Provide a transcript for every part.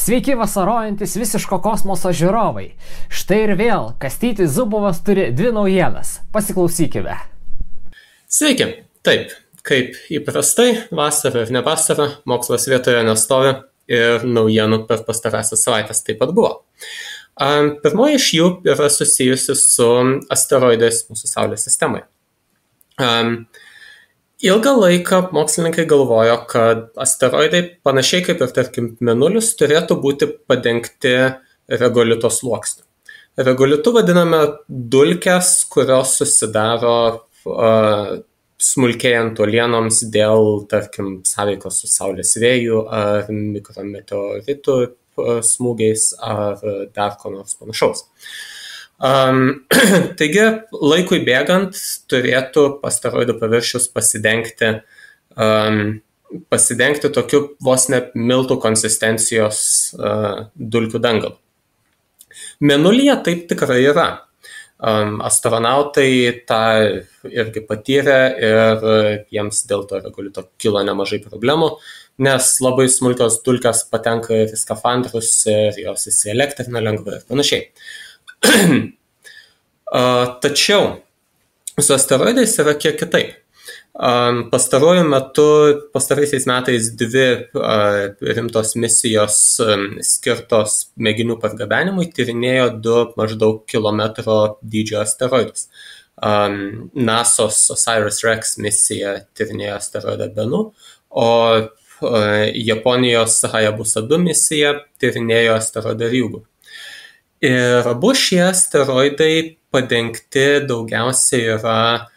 Sveiki vasarojantis visiško kosmoso žiūrovai. Štai ir vėl Kastytis Zubovas turi dvi naujienas. Pasiklausykime. Sveiki. Taip, kaip įprastai, vasara ir ne vasara, mokslas vietoje nestovi ir naujienų per pastarąsias savaitės taip pat buvo. Pirmoji iš jų yra susijusi su asteroidais mūsų Saulės sistemoje. Ilgą laiką mokslininkai galvojo, kad asteroidai, panašiai kaip ir tarkim Mėnulis, turėtų būti padengti regolito sluoksniu. Regolitu vadiname dulkes, kurios susidaro smulkėjant uolienoms dėl, tarkim, sąveikos su Saulės vėjų ar mikrometeoritų smūgiais ar dar ko nors panašaus. Taigi, laikui bėgant turėtų asteroidų paviršius pasidengti tokiu vos ne miltų konsistencijos dulkių dangalu. Mėnulyje taip tikrai yra. Astronautai tą irgi patyrė ir jiems dėl to regolito kilo nemažai problemų, nes labai smulkios dulkės patenka į skafandrus ir jos įsielektrina lengvai ir panašiai. Tačiau su asteroidais yra kiek kitaip. Pastaraisiais metais dvi rimtos misijos skirtos mėginių pargabenimui tyrinėjo du maždaug kilometro dydžio asteroidus. NASA's OSIRIS-REx misija tyrinėjo asteroidą Bennu, o Japonijos Hayabusa 2 misija tyrinėjo asteroidą Ryugu. Ir abu šie asteroidai padengti daugiausiai yra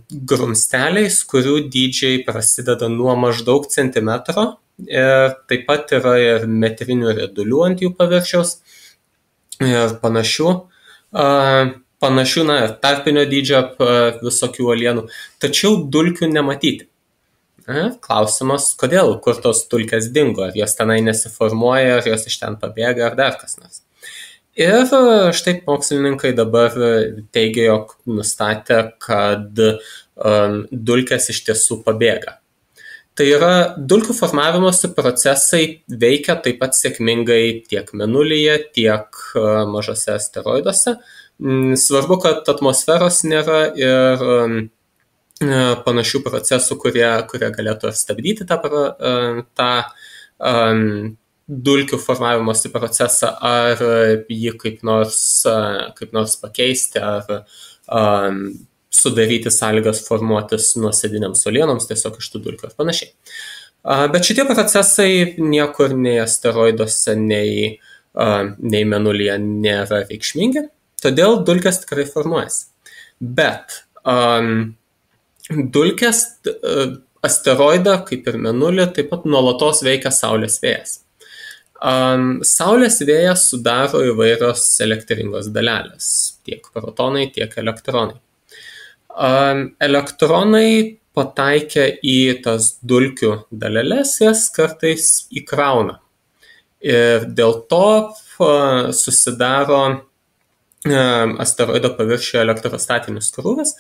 grumsteliais, kurių dydžiai prasideda nuo maždaug centimetro ir taip pat yra ir metrinių riedulių ant jų paviršiaus ir panašių ir tarpinio dydžio visokių uolienų, tačiau dulkių nematyti. Klausimas, kodėl, kur tos dulkės dingo, ar jos tenai nesiformuoja, ar jos iš ten pabėga, ar dar kas nors. Ir štai mokslininkai dabar teigia, jog nustatė, kad dulkės iš tiesų pabėga. Tai yra, dulkių formavimosi procesai veikia taip pat sėkmingai tiek Mėnulyje, tiek mažose asteroiduose. Svarbu, kad atmosferos nėra ir panašių procesų, kurie galėtų stabdyti tą dulkių formavimosi procesą, ar jį kaip nors pakeisti, ar sudaryti sąlygas formuotis nuosėdiniams uolienoms tiesiog iš tų dulkių ir panašiai. Bet šitie procesai niekur nei asteroiduose, nei Mėnulyje nėra reikšmingi, todėl dulkės tikrai formuojasi. Bet dulkės asteroidą, kaip ir Mėnulį, taip pat nuolatos veikia Saulės vėjas. Saulės vėją sudaro įvairios elektringos dalelės, tiek protonai, tiek elektronai. Elektronai pataikę į tas dulkių daleles, jas kartais įkrauna. Ir dėl to susidaro asteroido paviršiuje elektrostatinis krūvis,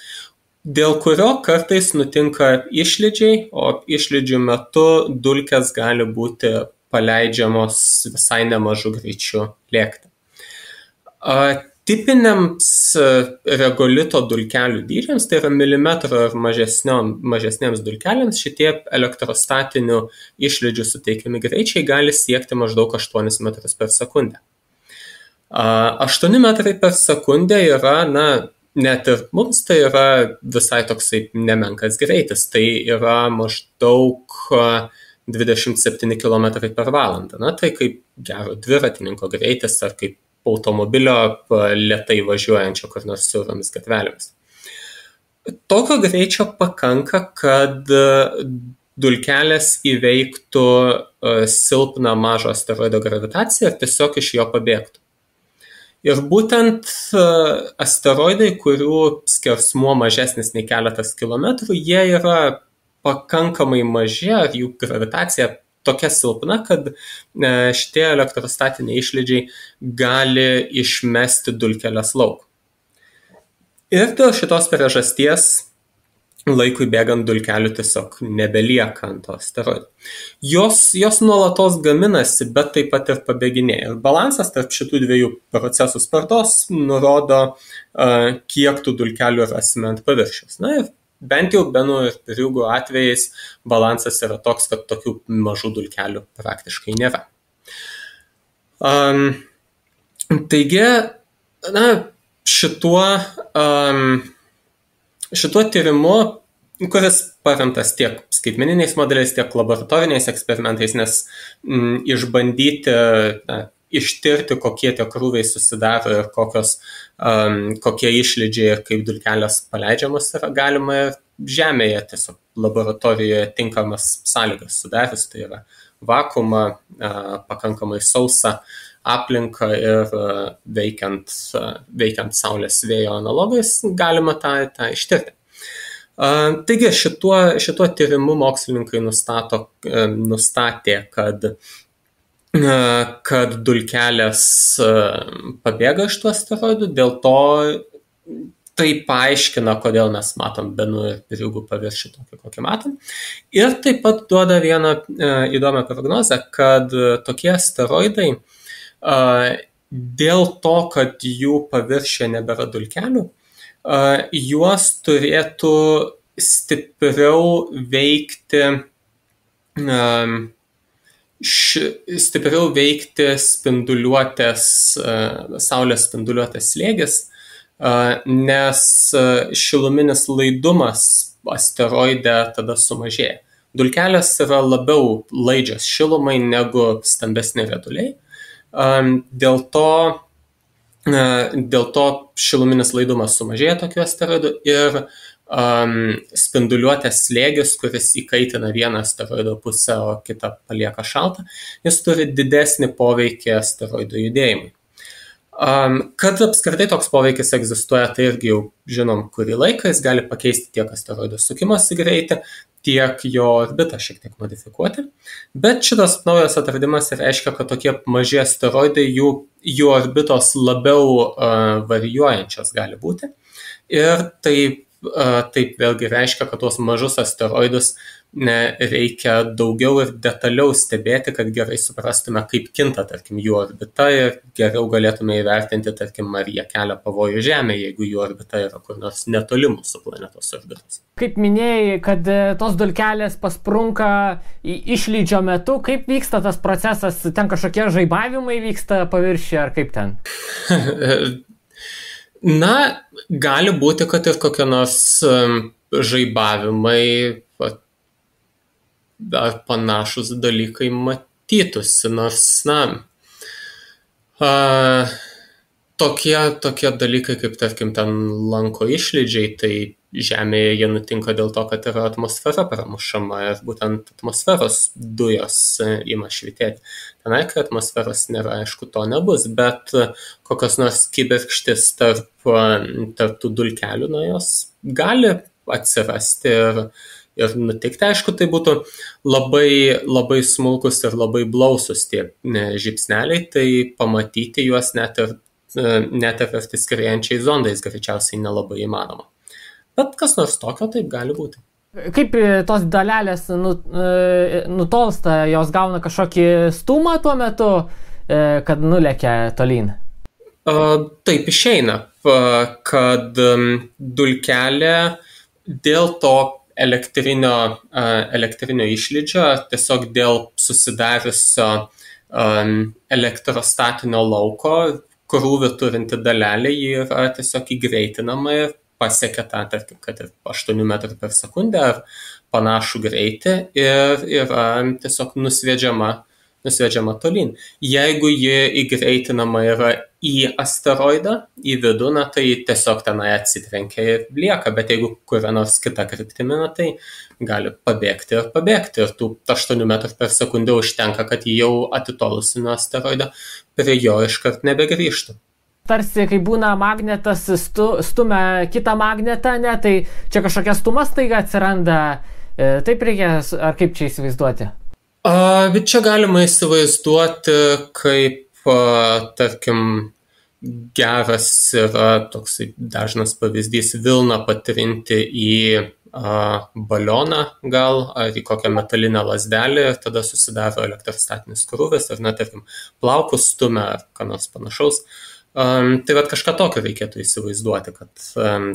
dėl kurio kartais nutinka išlydžiai, o išlydžių metu dulkės gali būti paleidžiamos visai nemažu greičiu lėkti. Tipiniams regolito dulkelių dydžiams, tai yra milimetro ir mažesniems dulkeliams, šitie elektrostatinių išlydžių suteikiami greičiai gali siekti maždaug 8 metrus per sekundę. 8 metrai per sekundę yra, net ir mums tai yra visai toksai nemenkas greitis, tai yra maždaug 27 km per valandą. Tai kaip gero dviratininko greitis ar kaip automobilio lėtai važiuojančio kur nors siauromis gatvelėmis. Tokio greičio pakanka, kad dulkelės įveiktų silpną mažo asteroido gravitaciją ir tiesiog iš jo pabėgtų. Ir būtent asteroidai, kurių skersmuo mažesnis nei keletas kilometrų, jie yra pakankamai maži, ar jų gravitacija tokia silpna, kad šitie elektrostatiniai išlydžiai gali išmesti dulkeles lauk. Ir dėl šitos priežasties laikui bėgant dulkelių tiesiog nebelieka ant to asteroido. Jos nuolatos gaminasi, bet taip pat ir pabėginėja. Ir balansas tarp šitų dviejų procesų spartos nurodo, kiek tų dulkelių rasime ant paviršiaus. Na ir bent jau Benų ir Ryugu atvejais balansas yra toks, kad tokių mažų dulkelių praktiškai nėra. Taigi, šituo tyrimu, kuris paremtas tiek skaitmeniniais modeliais, tiek laboratoriniais eksperimentais, nes išbandyti, ištirti, kokie tie krūviai susidaro ir kokie išlydžiai ir kaip dulkelės paleidžiamos yra galima ir Žemėje tiesiog laboratorijoje tinkamas sąlygas sudarius, tai yra vakuumą, pakankamai sausą aplinką ir veikiant Saulės vėjo analogais galima tą ištirti. Taigi šituo tyrimu mokslininkai nustatė, kad dulkelės pabėga iš tų asteroidų, dėl to tai paaiškina, kodėl mes matom Benų ir Ryugu paviršių tokį, kokį matom. Ir taip pat duoda vieną įdomią prognozę, kad tokie asteroidai dėl to, kad jų paviršiuje nebėra dulkelių, juos turėtų stipriau veikti spinduliuotės, Saulės spinduliuotės slėgis, nes šiluminis laidumas asteroide tada sumažėja. Dulkelės yra labiau laidžios šilumai negu stambesni rieduliai. Dėl to šiluminis laidumas sumažėja tokių asteroidų ir spinduliuotės slėgis, kuris įkaitina vieną asteroido pusę, o kitą palieka šaltą, jis turi didesnį poveikį asteroidų judėjimui. Kad apskritai toks poveikis egzistuoja, tai irgi jau žinom kurį laiką, jis gali pakeisti tiek asteroido sukimosi greitį, tiek jo orbitą šiek tiek modifikuoti. Bet šitas naujas atradimas reiškia, kad tokie maži asteroidai, jų orbitos labiau varijuojančios gali būti. Ir taip vėlgi reiškia, kad tuos mažus asteroidus reikia daugiau ir detaliau stebėti, kad gerai suprastume, kaip kinta, tarkim, jų orbita ir geriau galėtume įvertinti, tarkim, ar jie kelia pavojų Žemė, jeigu jų orbita yra kur nors netoli mūsų planetos orbitos. Kaip minėjai, kad tos dulkelės pasprunka išlydžio metu, kaip vyksta tas procesas, ten kažkokie žaibavimai vyksta paviršiuje ar kaip ten? Na, gali būti, kad ir kokie nors žaibavimai ar panašus dalykai matytųsi, nors, tokie dalykai, kaip tarkim ten lanko išlydžiai, tai Žemėje jie nutinka dėl to, kad yra atmosfera pramušama ir būtent atmosferos dujos ima švytėti. Tenai, kai atmosferos nėra, aišku, to nebus, bet kokios nors kibirkštis tarp tų dulkelių, jos gali atsirasti ir nutikti. Aišku, tai būtų labai smulkus ir labai blausus tie žybsneliai, tai pamatyti juos net ir skriejančiais zondais greičiausiai nelabai įmanoma. Bet kas nors tokio taip gali būti. Kaip tos dalelės nutolsta, jos gauna kažkokį stumą tuo metu, kad nulekia tolyn? Taip išeina, kad dulkelė dėl to elektrinio išlydžio, tiesiog dėl susidariusio elektrostatinio lauko, krūvį turinti dalelė, ji yra tiesiog įgreitinama ir pasiekia tą, tarkim, kad ir 8 metrų per sekundę ar panašų greitį ir yra tiesiog nusviedžiama tolyn. Jeigu ji įgreitinama yra į asteroidą, į vidų, tai tiesiog tenai atsitrenkia ir lieka, bet jeigu kuria nors kita kryptimi, tai gali pabėgti. Ir tų 8 metrų per sekundę užtenka, kad ji jau atitolusi nuo asteroido prie jo iškart nebegrįžtų. Tarsi, kai būna magnetas stumia kitą magnetą, tai čia kažkokia stuma staiga atsiranda, taip reikia, ar kaip čia įsivaizduoti? Bet čia galima įsivaizduoti, kaip, tarkim, geras yra toksai dažnas pavyzdys vilną patrinti į balioną gal, ar į kokią metalinę lazdelę ir tada susidaro elektrostatinis krūvis, ar tarkim, plaukus stumia ar ką nors panašaus. Tai kažką tokio reikėtų įsivaizduoti,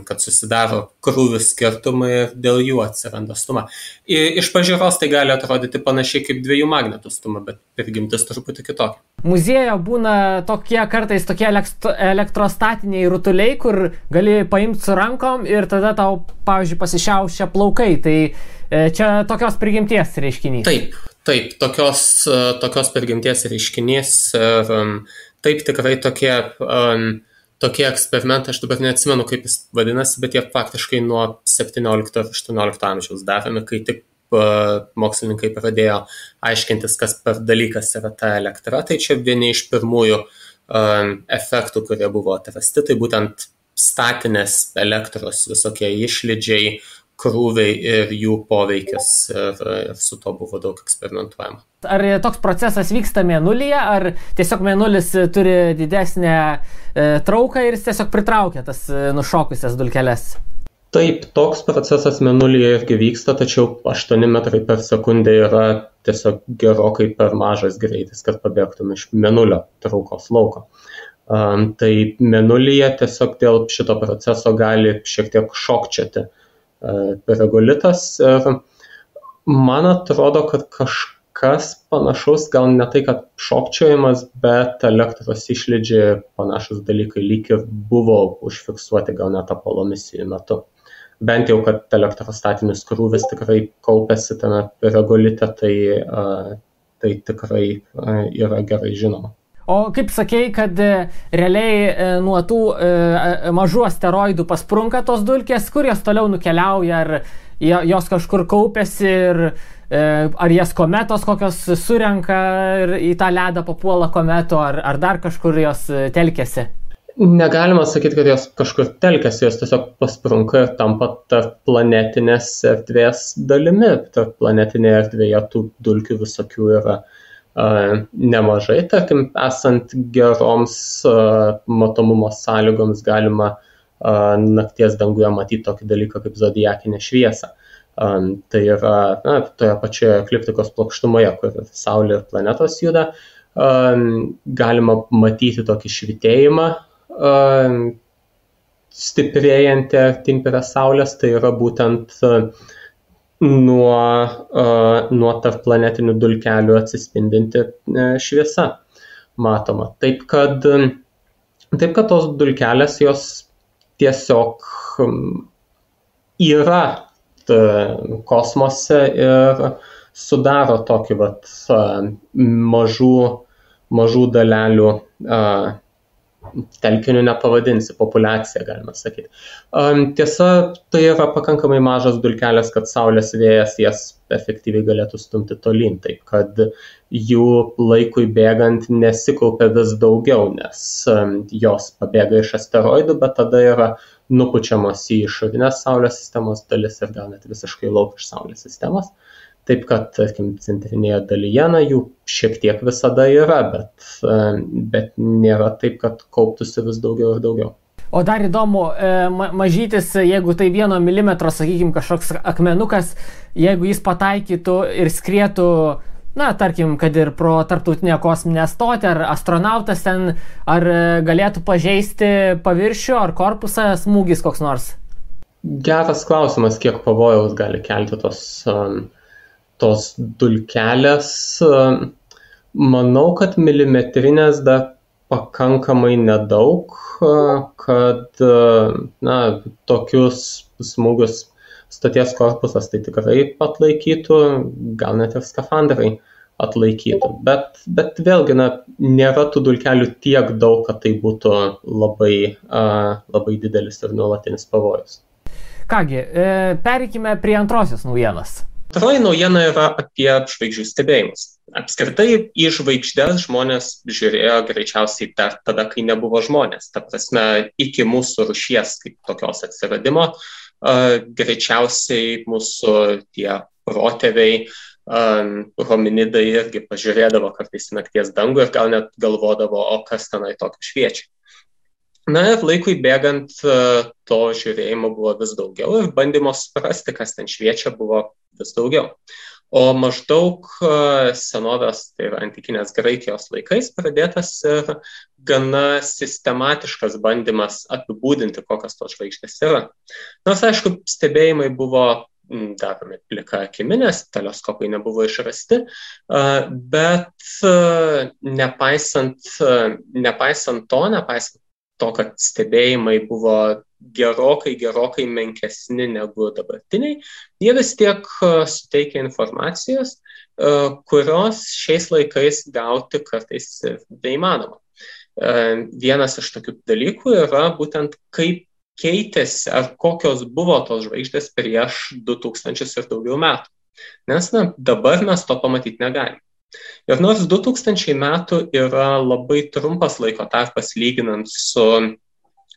kad susidaro krūvių skirtumai ir dėl jų atsiranda stuma. Iš pažiūros tai gali atrodyti panašiai kaip dviejų magnetų stuma, bet prigimtis truputį kitokia. Muziejuje būna kartais tokie elektrostatiniai rutuliai, kur gali paimti su rankom ir tada tau, pavyzdžiui, pasišiaušia plaukai. Tai čia tokios prigimties reiškinys. Taip, tokios prigimties reiškinys ir taip tikrai tokie eksperimentai, aš dabar neatsimenu, kaip jis vadinasi, bet jie faktiškai nuo 17 ir 18 amžiaus daromi, kai tik mokslininkai pradėjo aiškintis, kas per dalykas yra ta elektra. Tai čia vieni iš pirmųjų efektų, kurie buvo atrasti, tai būtent statinės elektros visokie išlydžiai, krūviai ir jų poveikis ir su to buvo daug eksperimentuojama. Ar toks procesas vyksta Mėnulyje, ar tiesiog Mėnulis turi didesnę trauką ir jis tiesiog pritraukia tas nušokusias dulkeles? Taip, toks procesas Mėnulyje irgi vyksta, tačiau 8 metrai per sekundę yra tiesiog gerokai per mažas greitis, kad pabėgtum iš Mėnulio traukos lauko. Tai Mėnulyje tiesiog dėl šito proceso gali šiek tiek šokčioti regolitas ir man atrodo, kad kažkas panašaus, gal ne tai, kad šokčiojimas, bet elektros išlydžiai panašus dalykai lyg ir buvo užfiksuoti gal net Apollo misijų metu. Bent jau, kad elektrostatinis krūvis tikrai kaupėsi tame regolite, tai tikrai yra gerai žinoma. O kaip sakei, kad realiai nuo tų mažų asteroidų pasprunka tos dulkės, kur jos toliau nukeliauja, ar jos kažkur kaupėsi ir ar jas kometos kokios surenka ir į tą ledą papuola kometo, ar dar kažkur jos telkėsi? Negalima sakyti, kad jos kažkur telkėsi, jos tiesiog pasprunka ir tampa tarp planetinės erdvės dalimi. Tarp planetinėje erdvėje tų dulkių visokių yra nemažai, tarkim, esant geroms matomumo sąlygoms galima nakties danguje matyti tokį dalyką kaip zodiakinę šviesą. Tai yra toje pačioje ekliptikos plokštumoje, kur Saulė ir planetos juda, galima matyti tokį švytėjimą stiprėjantį artyn prie Saulės, tai yra būtent nuo tarpplanetinių dulkelių atsispindinti šviesa matoma. Taip, kad tos dulkelės jos tiesiog yra kosmose ir sudaro tokį mažų dalelių telkinių nepavadinsi, populiacija, galima sakyti. Tiesa, tai yra pakankamai mažas dulkelės, kad Saulės vėjas jas efektyviai galėtų stumti tolyn, taip kad jų laikui bėgant nesikaupia vis daugiau, nes jos pabėga iš asteroidų, bet tada yra nupučiamos į išorinės Saulės sistemos dalis ir gal net visiškai lauk iš Saulės sistemos. Taip kad, tarkim, centrinėje dalyje jų šiek tiek visada yra, bet nėra taip, kad kauptųsi vis daugiau ir daugiau. O dar įdomu, mažytis, jeigu tai 1 milimetro, sakykime, kažkoks akmenukas, jeigu jis pataikytų ir skrietų, tarkim, kad ir pro tarptautinę kosminę stotį, ar astronautas ten, ar galėtų pažeisti paviršių, ar korpusą smūgis koks nors? Geras klausimas, kiek pavojaus gali kelti tos dulkelės. Manau, kad milimetrinės dar pakankamai nedaug, kad tokius smūgius stoties korpusas tai tikrai atlaikytų, gal net ir skafandrai atlaikytų. Bet vėlgi nėra tų dulkelių tiek daug, kad tai būtų labai didelis ir nuolatinis pavojus. Kągi, pereikime prie antrosios naujienos. Antroji naujiena yra apie žvaigždžių stebėjimus. Apskritai į žvaigždes žmonės žiūrėjo greičiausiai dar tada, kai nebuvo žmonės. Ta prasme, iki mūsų rūšies kaip tokios atsiradimo, greičiausiai mūsų tie protėviai, hominidai irgi pažiūrėdavo kartais nakties dangų ir gal net galvodavo, o kas tenai tokio šviečia. Na ir laikui bėgant to žiūrėjimo buvo vis daugiau ir bandymo suprasti, kas ten šviečia, buvo vis daugiau. O maždaug senovės, tai yra antikinės Graikijos laikais, pradėtas ir gana sistematiškas bandymas apibūdinti, kokios tos žvaigždės yra. Nors, aišku, stebėjimai buvo daromi plika akimi, nes teleskopai nebuvo išrasti, bet nepaisant to, kad stebėjimai buvo gerokai menkesni negu dabartiniai, jie vis tiek suteikia informacijos, kurios šiais laikais gauti kartais neįmanoma. Vienas iš tokių dalykų yra būtent kaip keitėsi ar kokios buvo tos žvaigždės prieš 2000 ir daugiau metų. Nes dabar mes to pamatyti negalim. Ir nors 2000 metų yra labai trumpas laiko tarpas lyginant su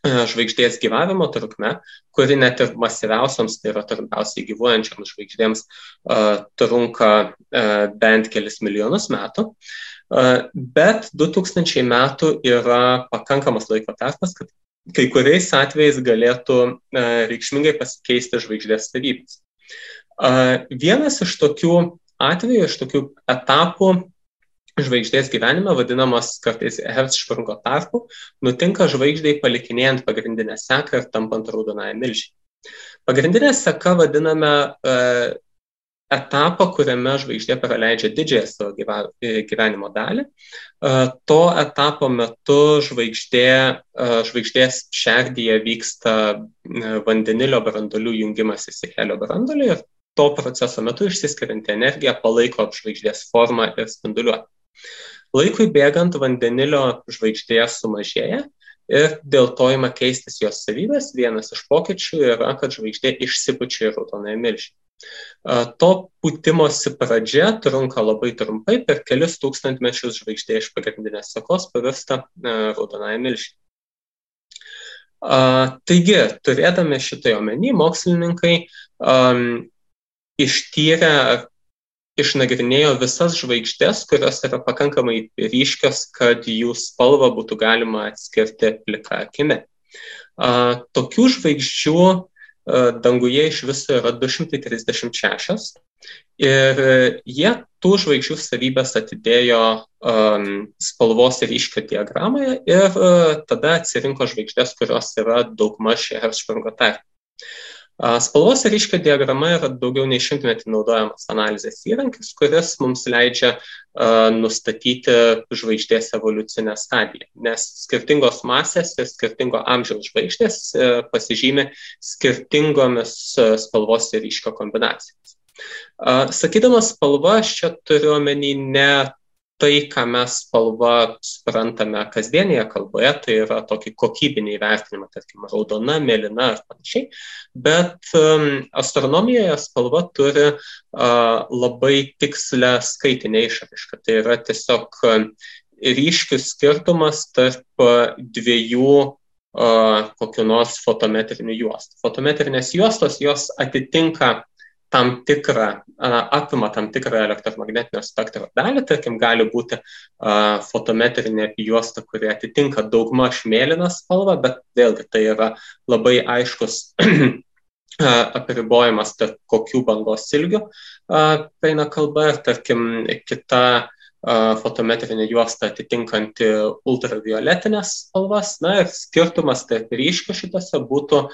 žvaigždės gyvavimo trukme, kuri net ir masyviausiams, tai yra trumpiausiai gyvuojančiams žvaigždėms, trunka bent kelis milijonus metų. Bet 2000 metų yra pakankamas laiko tarpas, kad kai kuriais atvejais galėtų reikšmingai pasikeisti žvaigždės savybės. Vienas iš tokių atvejų, iš tokių etapų žvaigždės gyvenime, vadinamas kartais Hertzsprungo tarpu, nutinka žvaigždei palikinėjant pagrindinę seką ir tampant raudonąją milžį. Pagrindinę seką vadiname etapą, kuriame žvaigždė praleidžia didžiąją savo gyvenimo dalį. To etapo metu žvaigždės šerdyje vyksta vandenilio branduolių jungimasis į helio branduolį ir to proceso metu išsiskirianti energija palaiko žvaigždės formą ir spinduliuotę. Laikui bėgant vandenilio žvaigždėje sumažėja ir dėl to ima keistis jos savybės. Vienas iš pokyčių yra, kad žvaigždė išsipučia į raudonąją milžį. To pūtimosi pradžia trunka labai trumpai, per kelis tūkstantmečius žvaigždė iš pagrindinės sekos pavirsta raudonąją milžį. Taigi, turėdami šitai omeny, mokslininkai išnagrinėjo visas žvaigždės, kurios yra pakankamai ryškios, kad jų spalvą būtų galima atskirti plika akimi. Tokių žvaigždžių danguje iš viso yra 236 ir jie tų žvaigždžių savybės atidėjo spalvos ryškio diagramoje ir tada atsirinko žvaigždės, kurios yra daugmaž Hertzsprungo tarpe. Spalvos ryškio diagrama yra daugiau nei 100 naudojamas analizės įrankis, kuris mums leidžia nustatyti žvaigždės evoliucinę stadiją, nes skirtingos masės ir skirtingo amžiaus žvaigždės pasižymi skirtingomis spalvos ryškio kombinacijomis. Sakydamas spalva, aš čia turiu omeny ne tai, ką mes spalva suprantame kasdienėje kalboje, tai yra tokį kokybinį įvertinimą, tarkim, raudona, mėlyna ar panašiai, bet astronomijoje spalva turi labai tikslę skaitinę išraišką. Tai yra tiesiog ryškius skirtumas tarp dviejų kokių nors fotometrinių juostų. Fotometrinės juostos, jos atitinka apima tam tikrą elektromagnetinio spektro dalį, tarkim, gali būti fotometrinė juosta, kuri atitinka daugmaž mėlyną spalvą, bet vėlgi tai yra labai aiškus apribojimas tarp kokių bangos ilgių eina kalba ir, tarkim, kita fotometrinė juosta atitinkanti ultravioletinės spalvas. Na ir skirtumas tarp ryškių šitose būtų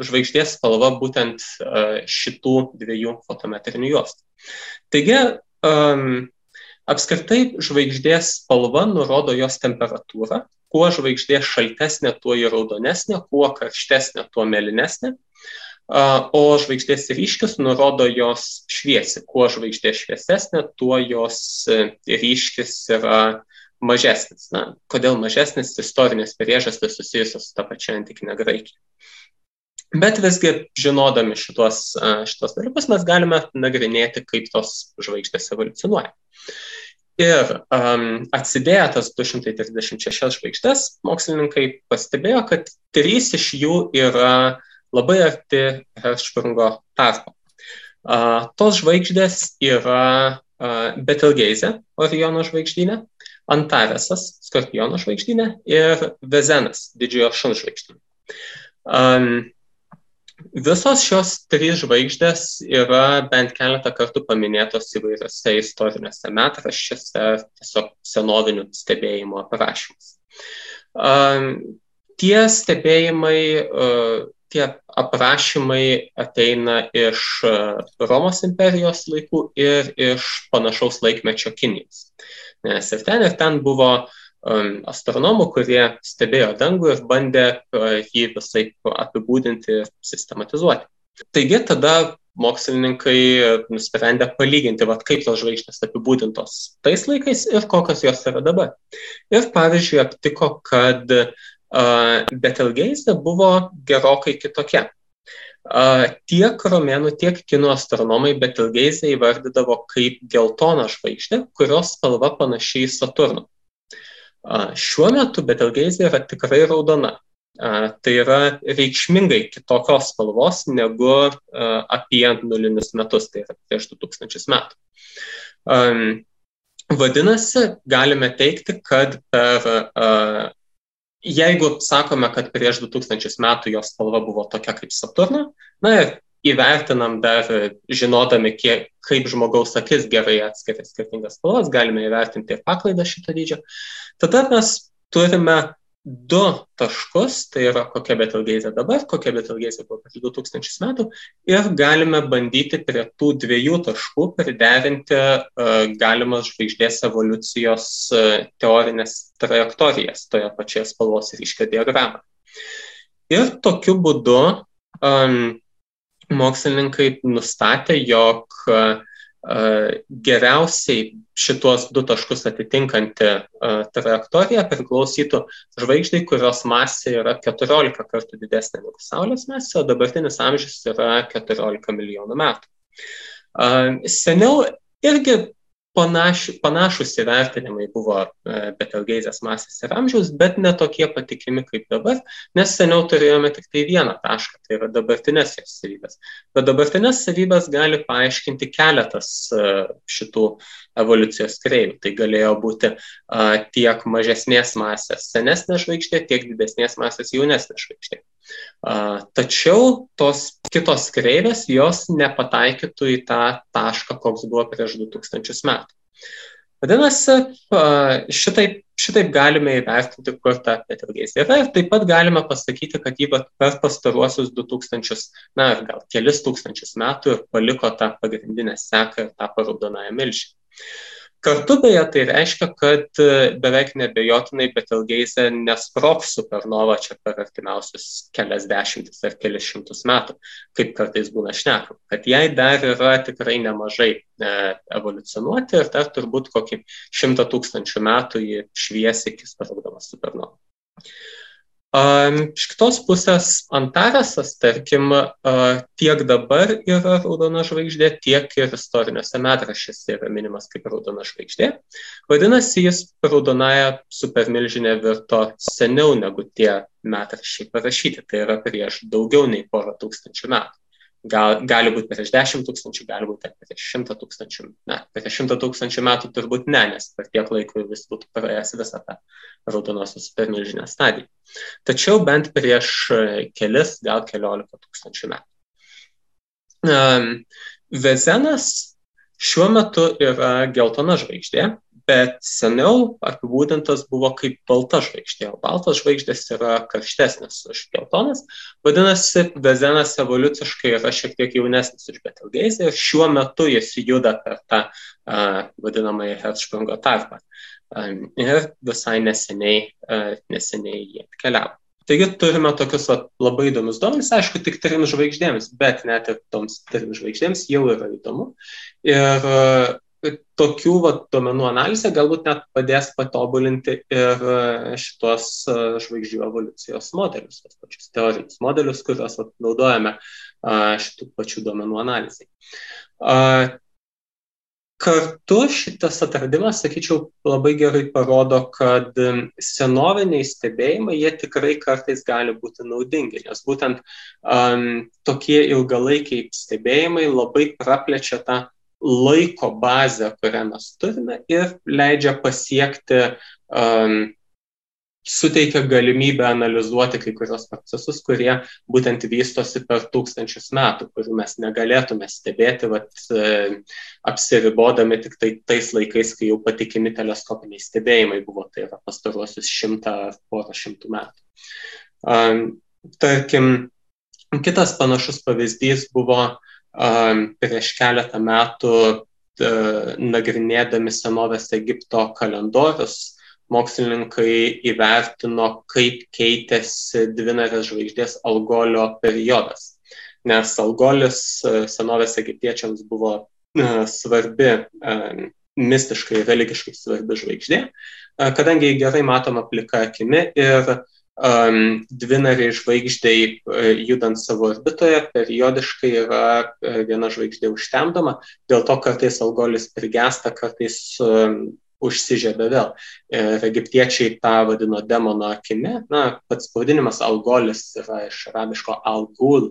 žvaigždės spalva būtent šitų dviejų fotometrinių juostų. Taigi, apskritai žvaigždės spalva nurodo jos temperatūrą. Kuo žvaigždė šaltesnė, tuo ji raudonesnė, kuo karštesnė, tuo mėlynesnė. O žvaigždės ryškis nurodo jos šviesį. Kuo žvaigždė šviesesnė, tuo jos ryškis yra mažesnis. Kodėl mažesnis? Istorinės priežastys susijusios su ta pačia antikinė Graikija. Bet visgi, žinodami šitos dalykus, mes galime nagrinėti, kaip tos žvaigždės evoliucionuoja. Ir atsidėję tas 236 žvaigždės, mokslininkai pastebėjo, kad 3 iš jų yra labai arti Hertzsprungo tarpo. Tos žvaigždės yra Betelgeuse, Oriono žvaigždyne, Antaresas, Skorpiono žvaigždynė ir Vezenas, Didžiojo šuns žvaigždynė. Visos šios trys žvaigždės yra bent keletą kartų paminėtos įvairiose istoriniuose metraščiuose, tiesiog senovinių stebėjimų aprašymus. Tie stebėjimai, tie aprašymai ateina iš Romos imperijos laikų ir iš panašaus laikmečio Kinijos. Nes ir ten buvo astronomų, kurie stebėjo dangų ir bandė jį visai apibūdinti ir sistematizuoti. Taigi tada mokslininkai nusprendė palyginti, kaip tos žvaigždės apibūdintos tais laikais ir kokios jos yra dabar. Ir pavyzdžiui, aptiko, kad Betelgeuse buvo gerokai kitokia. Tiek romėnų, tiek kinų astronomai Betelgeusę įvardydavo kaip geltoną žvaigždę, kurios spalva panaši į Saturną. Šiuo metu Betelgeusė yra tikrai raudona. Tai yra reikšmingai kitokios spalvos negu apie nulinius metus, tai yra prieš 2000 metų. Vadinasi, galime teigti, kad jeigu sakome, kad prieš 2000 metų jos spalva buvo tokia kaip Saturno, ir įvertinam dar, žinodami, kaip žmogaus akis gerai atskiria skirtingas spalvas, galime įvertinti ir paklaidą šito dydžio. Tada mes turime du taškus, tai yra kokia Betelgeusė dabar, kokia Betelgeusė buvo prieš 2000 metų, ir galime bandyti prie tų dviejų taškų priderinti galimas žvaigždės evoliucijos teorinės trajektorijas toje pačioje spalvos ryškio diagramoje. Ir tokiu būdu mokslininkai nustatė, jog geriausiai šituos du taškus atitinkanti trajektorija priklausytų žvaigždai, kurios masė yra 14 kartų didesnė negu Saulės masė, o dabartinis amžius yra 14 milijonų metų. Seniau irgi panašus įvertinimai buvo Betelgeusės masės ir amžiaus, bet ne tokie patikimi kaip dabar, nes seniau turėjome tik tai vieną tašką, tai yra dabartinės jos savybės. Bet dabartinės savybės gali paaiškinti keletas šitų evoliucijos kreivių. Tai galėjo būti tiek mažesnės masės senesnė žvaigždė, tiek didesnės masės jaunesnė žvaigždė. Tačiau tos kitos kreivės jos nepataikytų į tą tašką, koks buvo prieš 2000 metų. Vadinasi, šitaip galime įvertinti, kur ta Betelgeusė yra, ir taip pat galime pasakyti, kad jį per pastaruosius 2000, gal kelis tūkstančius metų ir paliko tą pagrindinę seką ir tapo raudonąją milžinę. Kartu beje tai reiškia, kad beveik neabejotinai Betelgeusė nesprogs supernova čia per artimiausius kelias dešimtis ar kelis šimtus metų, kaip kartais būna šnekama, kad jai dar yra tikrai nemažai evoliucionuoti ir dar turbūt kokį 100 000 metų ji švies iki sprogdama supernova. Iš kitos pusės Antaresas, tarkim, tiek dabar yra raudona žvaigždė, tiek ir istoriniuose metraščiuose yra minimas kaip raudona žvaigždė. Vadinasi, jis raudonąją supermilžinę virto seniau negu tie metraščiai parašyti, tai yra prieš daugiau nei porą tūkstančių metų. Gali būti prieš 10 000, gali būti prieš 100 000. Prieš 100 000 metų turbūt ne, nes per tiek laiko vis būtų praėjęs visą tą raudonosios supermilžinę stadiją. Tačiau bent prieš kelis, gal 14 000 metų. Vezenas šiuo metu yra geltona žvaigždė, bet seniau apibūdintas buvo kaip balta žvaigždė, o baltos žvaigždės yra karštesnės už geltonas. Vadinasi, Vezenas evoliuciškai yra šiek tiek jaunesnis už Betelgeusę ir šiuo metu jis juda per tą vadinamąjį Hertzsprungo tarpą. Ir visai neseniai jie atkeliavo. Taigi turime tokius labai įdomius duomenis, aišku, tik 3 žvaigždėms, bet net ir toms 3 žvaigždėms jau yra įdomu. Ir tokių duomenų analizė galbūt net padės patobulinti ir šitos žvaigždžių evoliucijos modelius, tos pačius teorinius modelius, kuriuos naudojame šitų pačių duomenų analizai. Kartu šitas atradimas, sakyčiau, labai gerai parodo, kad senoviniai stebėjimai, jie tikrai kartais gali būti naudingi, nes būtent tokie ilgalaikiai stebėjimai labai praplečia tą laiko bazę, kurią mes turime ir leidžia pasiekti, suteikia galimybę analizuoti kai kurios procesus, kurie būtent vystosi per tūkstančius metų, kurių mes negalėtume stebėti, apsiribodami tik tais laikais, kai jau patikimi teleskopiniai stebėjimai buvo, tai yra pastaruosius 100 ar porą šimtų metų. Tarkim, kitas panašus pavyzdys buvo prieš keletą metų nagrinėdami senovės Egipto kalendorius, mokslininkai įvertino, kaip keitėsi dvinarės žvaigždės Algolio periodas. Nes Algolis senovės egiptiečiams buvo svarbi, mistiškai, religiškai svarbi žvaigždė, kadangi gerai matoma plika akimi ir dvinariai žvaigždei judant savo orbitoje periodiškai yra viena žvaigždė užtemdoma, dėl to kartais Algolis prigęsta, kartais užsižiebia vėl. Ir egiptiečiai tą vadino demono akimi. Pats pavadinimas Algolis yra iš arabiško Al-Ghul,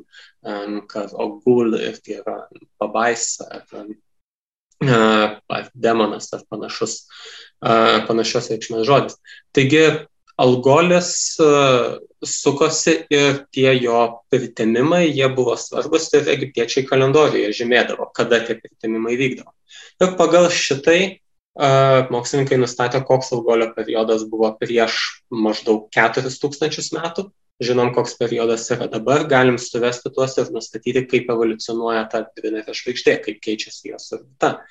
kad Al-Ghul irgi yra pabaisa, ar demonas, ar panašios reikšmės žodis. Taigi Algolis sukosi ir tie jo pritemimai, jie buvo svarbus ir egiptiečiai kalendorijoje žymėdavo, kada tie pritemimai vykdavo. Ir pagal šitai mokslininkai nustatė, koks Algolio periodas buvo prieš maždaug 4000 metų. Žinom, koks periodas yra dabar, galim suvesti tuos ir nustatyti, kaip evoliucionuoja ta dvinarė žvaigždė, kaip keičiasi jos orbita.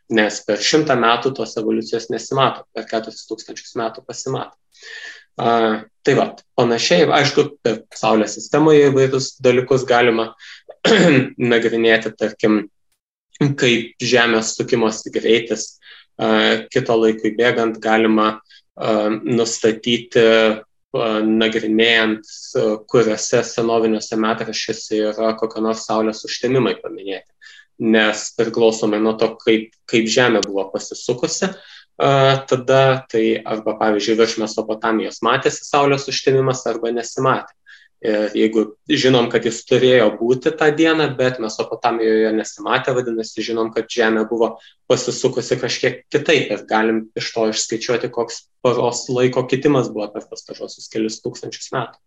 Nes per 100 metų tos evoliucijos nesimato, per 4000 metų pasimato. Tai va, panašiai, aišku, per Saulės sistemoje įvairius dalykus galima nagrinėti, tarkim, kaip Žemės sukimosi greitis kito laikui bėgant galima nustatyti, nagrinėjant, kuriuose senoviniuose metraščiuose yra kokio nors Saulės užtemimai paminėti. Nes priklausomai nuo to, kaip Žemė buvo pasisukusi, tada tai arba, pavyzdžiui, virš Mesopotamijos matėsi Saulės užtemimas arba nesimatė. Ir jeigu žinom, kad jis turėjo būti tą dieną, bet Mesopotamijoje nesimatė, vadinasi, žinom, kad Žemė buvo pasisukusi kažkiek kitaip ir galim iš to išskaičiuoti, koks paros laiko kitimas buvo per pastaruosius kelius tūkstančius metų.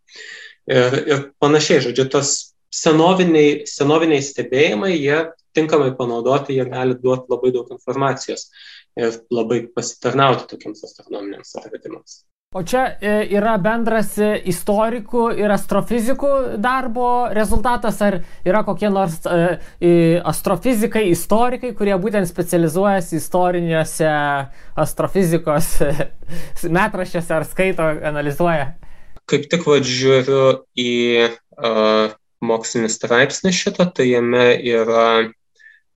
Ir panašiai, žodžiu, tos senoviniai stebėjimai, jie tinkamai panaudoti, jie gali duoti labai daug informacijos ir labai pasitarnauti tokiems astronominiams atradimams. O čia yra bendras istorikų ir astrofizikų darbo rezultatas, ar yra kokie nors astrofizikai, istorikai, kurie būtent specializuojasi istoriniuose astrofizikos metraščiuose ar skaito, analizuoja? Kaip tik žiūriu į mokslinį straipsnį šitą, tai jame yra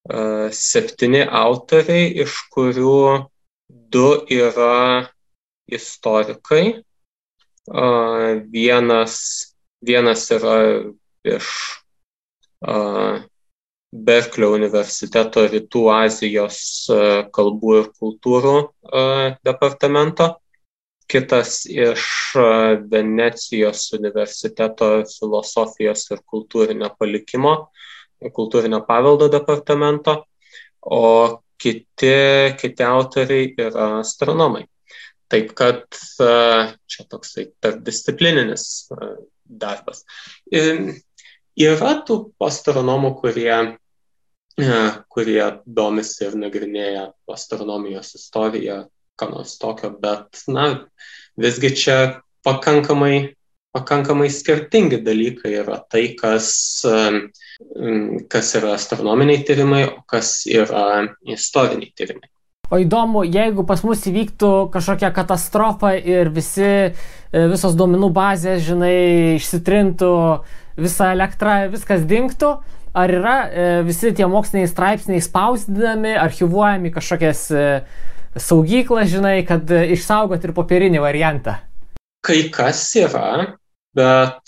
7 autoriai, iš kurių 2 yra istorikai. Vienas yra iš Berklio universiteto Rytų Azijos kalbų ir kultūrų departamento, kitas iš Venecijos universiteto filosofijos ir kultūrinio paveldo departamento, o kiti autoriai yra astronomai. Taip kad čia toksai tarpdisciplininis darbas. Yra tų astronomų, kurie domisi ir nagrinėja astronomijos istoriją, ką nors tokio, bet visgi čia pakankamai skirtingi dalykai yra tai, kas yra astronominiai tyrimai, o kas yra istoriniai tyrimai. O įdomu, jeigu pas mus įvyktų kažkokia katastrofa ir visos duomenų bazės, išsitrintų, visa elektra, viskas dingtų, ar yra visi tie moksliniai straipsniai spausdinami, archyvuojami kažkokias saugyklas, kad išsaugoti ir popierinį variantą? Kai kas yra, bet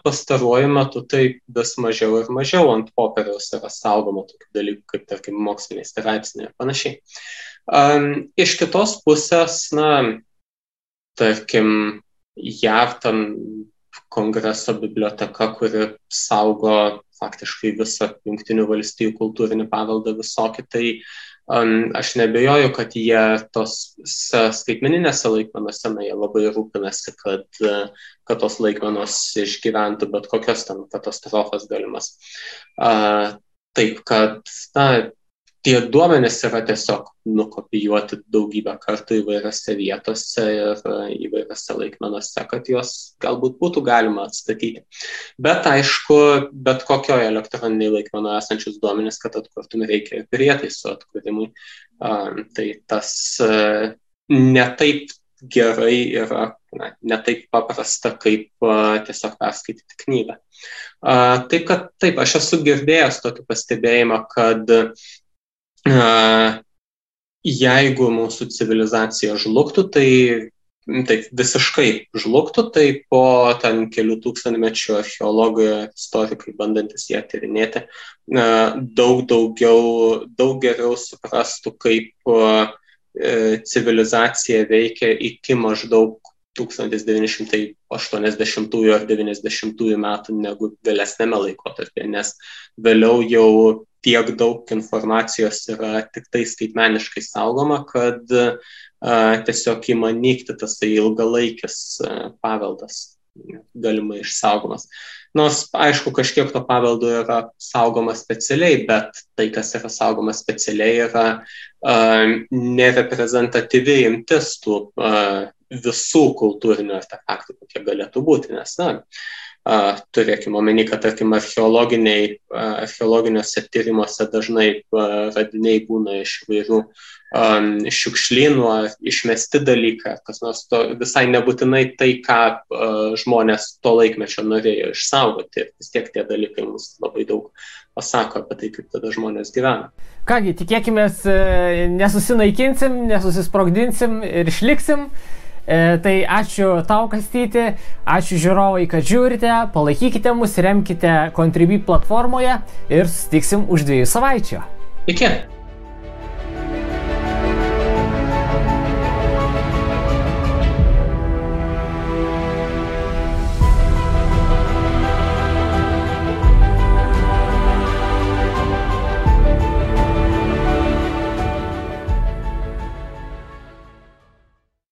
pastaruoju metu tai vis mažiau ir mažiau ant popieriaus yra saugoma tokių dalykų, kaip, tarkim, moksliniai straipsniai ir panašiai. Iš kitos pusės, tarkim, JAV ten Kongreso biblioteka, kuri saugo faktiškai visą Jungtinių valstijų kultūrinį paveldą visokį, tai aš nebejoju, kad jie tos skaitmeninėse laikmenose, jie labai rūpinasi, kad tos laikmenos išgyventų bet kokios ten katastrofas galimas. Taip, kad tie duomenys yra tiesiog nukopijuoti daugybę kartų įvairiose vietose ir įvairiose laikmenose, kad juos galbūt būtų galima atstatyti. Bet aišku, bet kokioje elektroniniai laikmenoje esančius duomenys, kad atkurtume, reikia ir prietaisų atkūrimui. Tai tas netaip gerai yra, netaip paprasta, kaip tiesiog perskaityti knygą. Taip, aš esu girdėjęs tokį pastebėjimą, kad jeigu mūsų civilizacija žlugtų, tai visiškai žlugtų, tai po ten kelių tūkstantmečių archeologai, istorikai, bandantis ją tyrinėti, daug geriau suprastų, kaip civilizacija veikia iki maždaug 1980 ar 90 metų negu vėlesnėme laikotarpyje, nes vėliau jau tiek daug informacijos yra tik tai skaitmeniškai saugoma, kad tiesiog ima nykti tas ilgalaikis paveldas galimai išsaugomas. Nors, aišku, kažkiek to paveldo yra saugoma specialiai, bet tai, kas yra saugoma specialiai, yra nereprezentatyvi imtis tų visų kultūrinių artefaktų, kokie galėtų būti, nes, turėkime omeny, kad, tarkim, archeologiniuose tyrimuose dažnai radiniai būna iš įvairių šiukšlynų ar išmesti dalykai, kas nors to visai nebūtinai tai, ką žmonės to laikmečio norėjo išsaugoti. Vis tiek tie dalykai mums labai daug pasako apie tai, kaip tada žmonės gyvena. Kągi, tikėkimės, nesusinaikinsim, nesusisprogdinsim ir išliksim. Tai ačiū tau, Kastyti, ačiū žiūrovai, kad žiūrite, palaikykite mus, remkite Contribui platformoje ir susitiksim už 2 savaičių. Iki.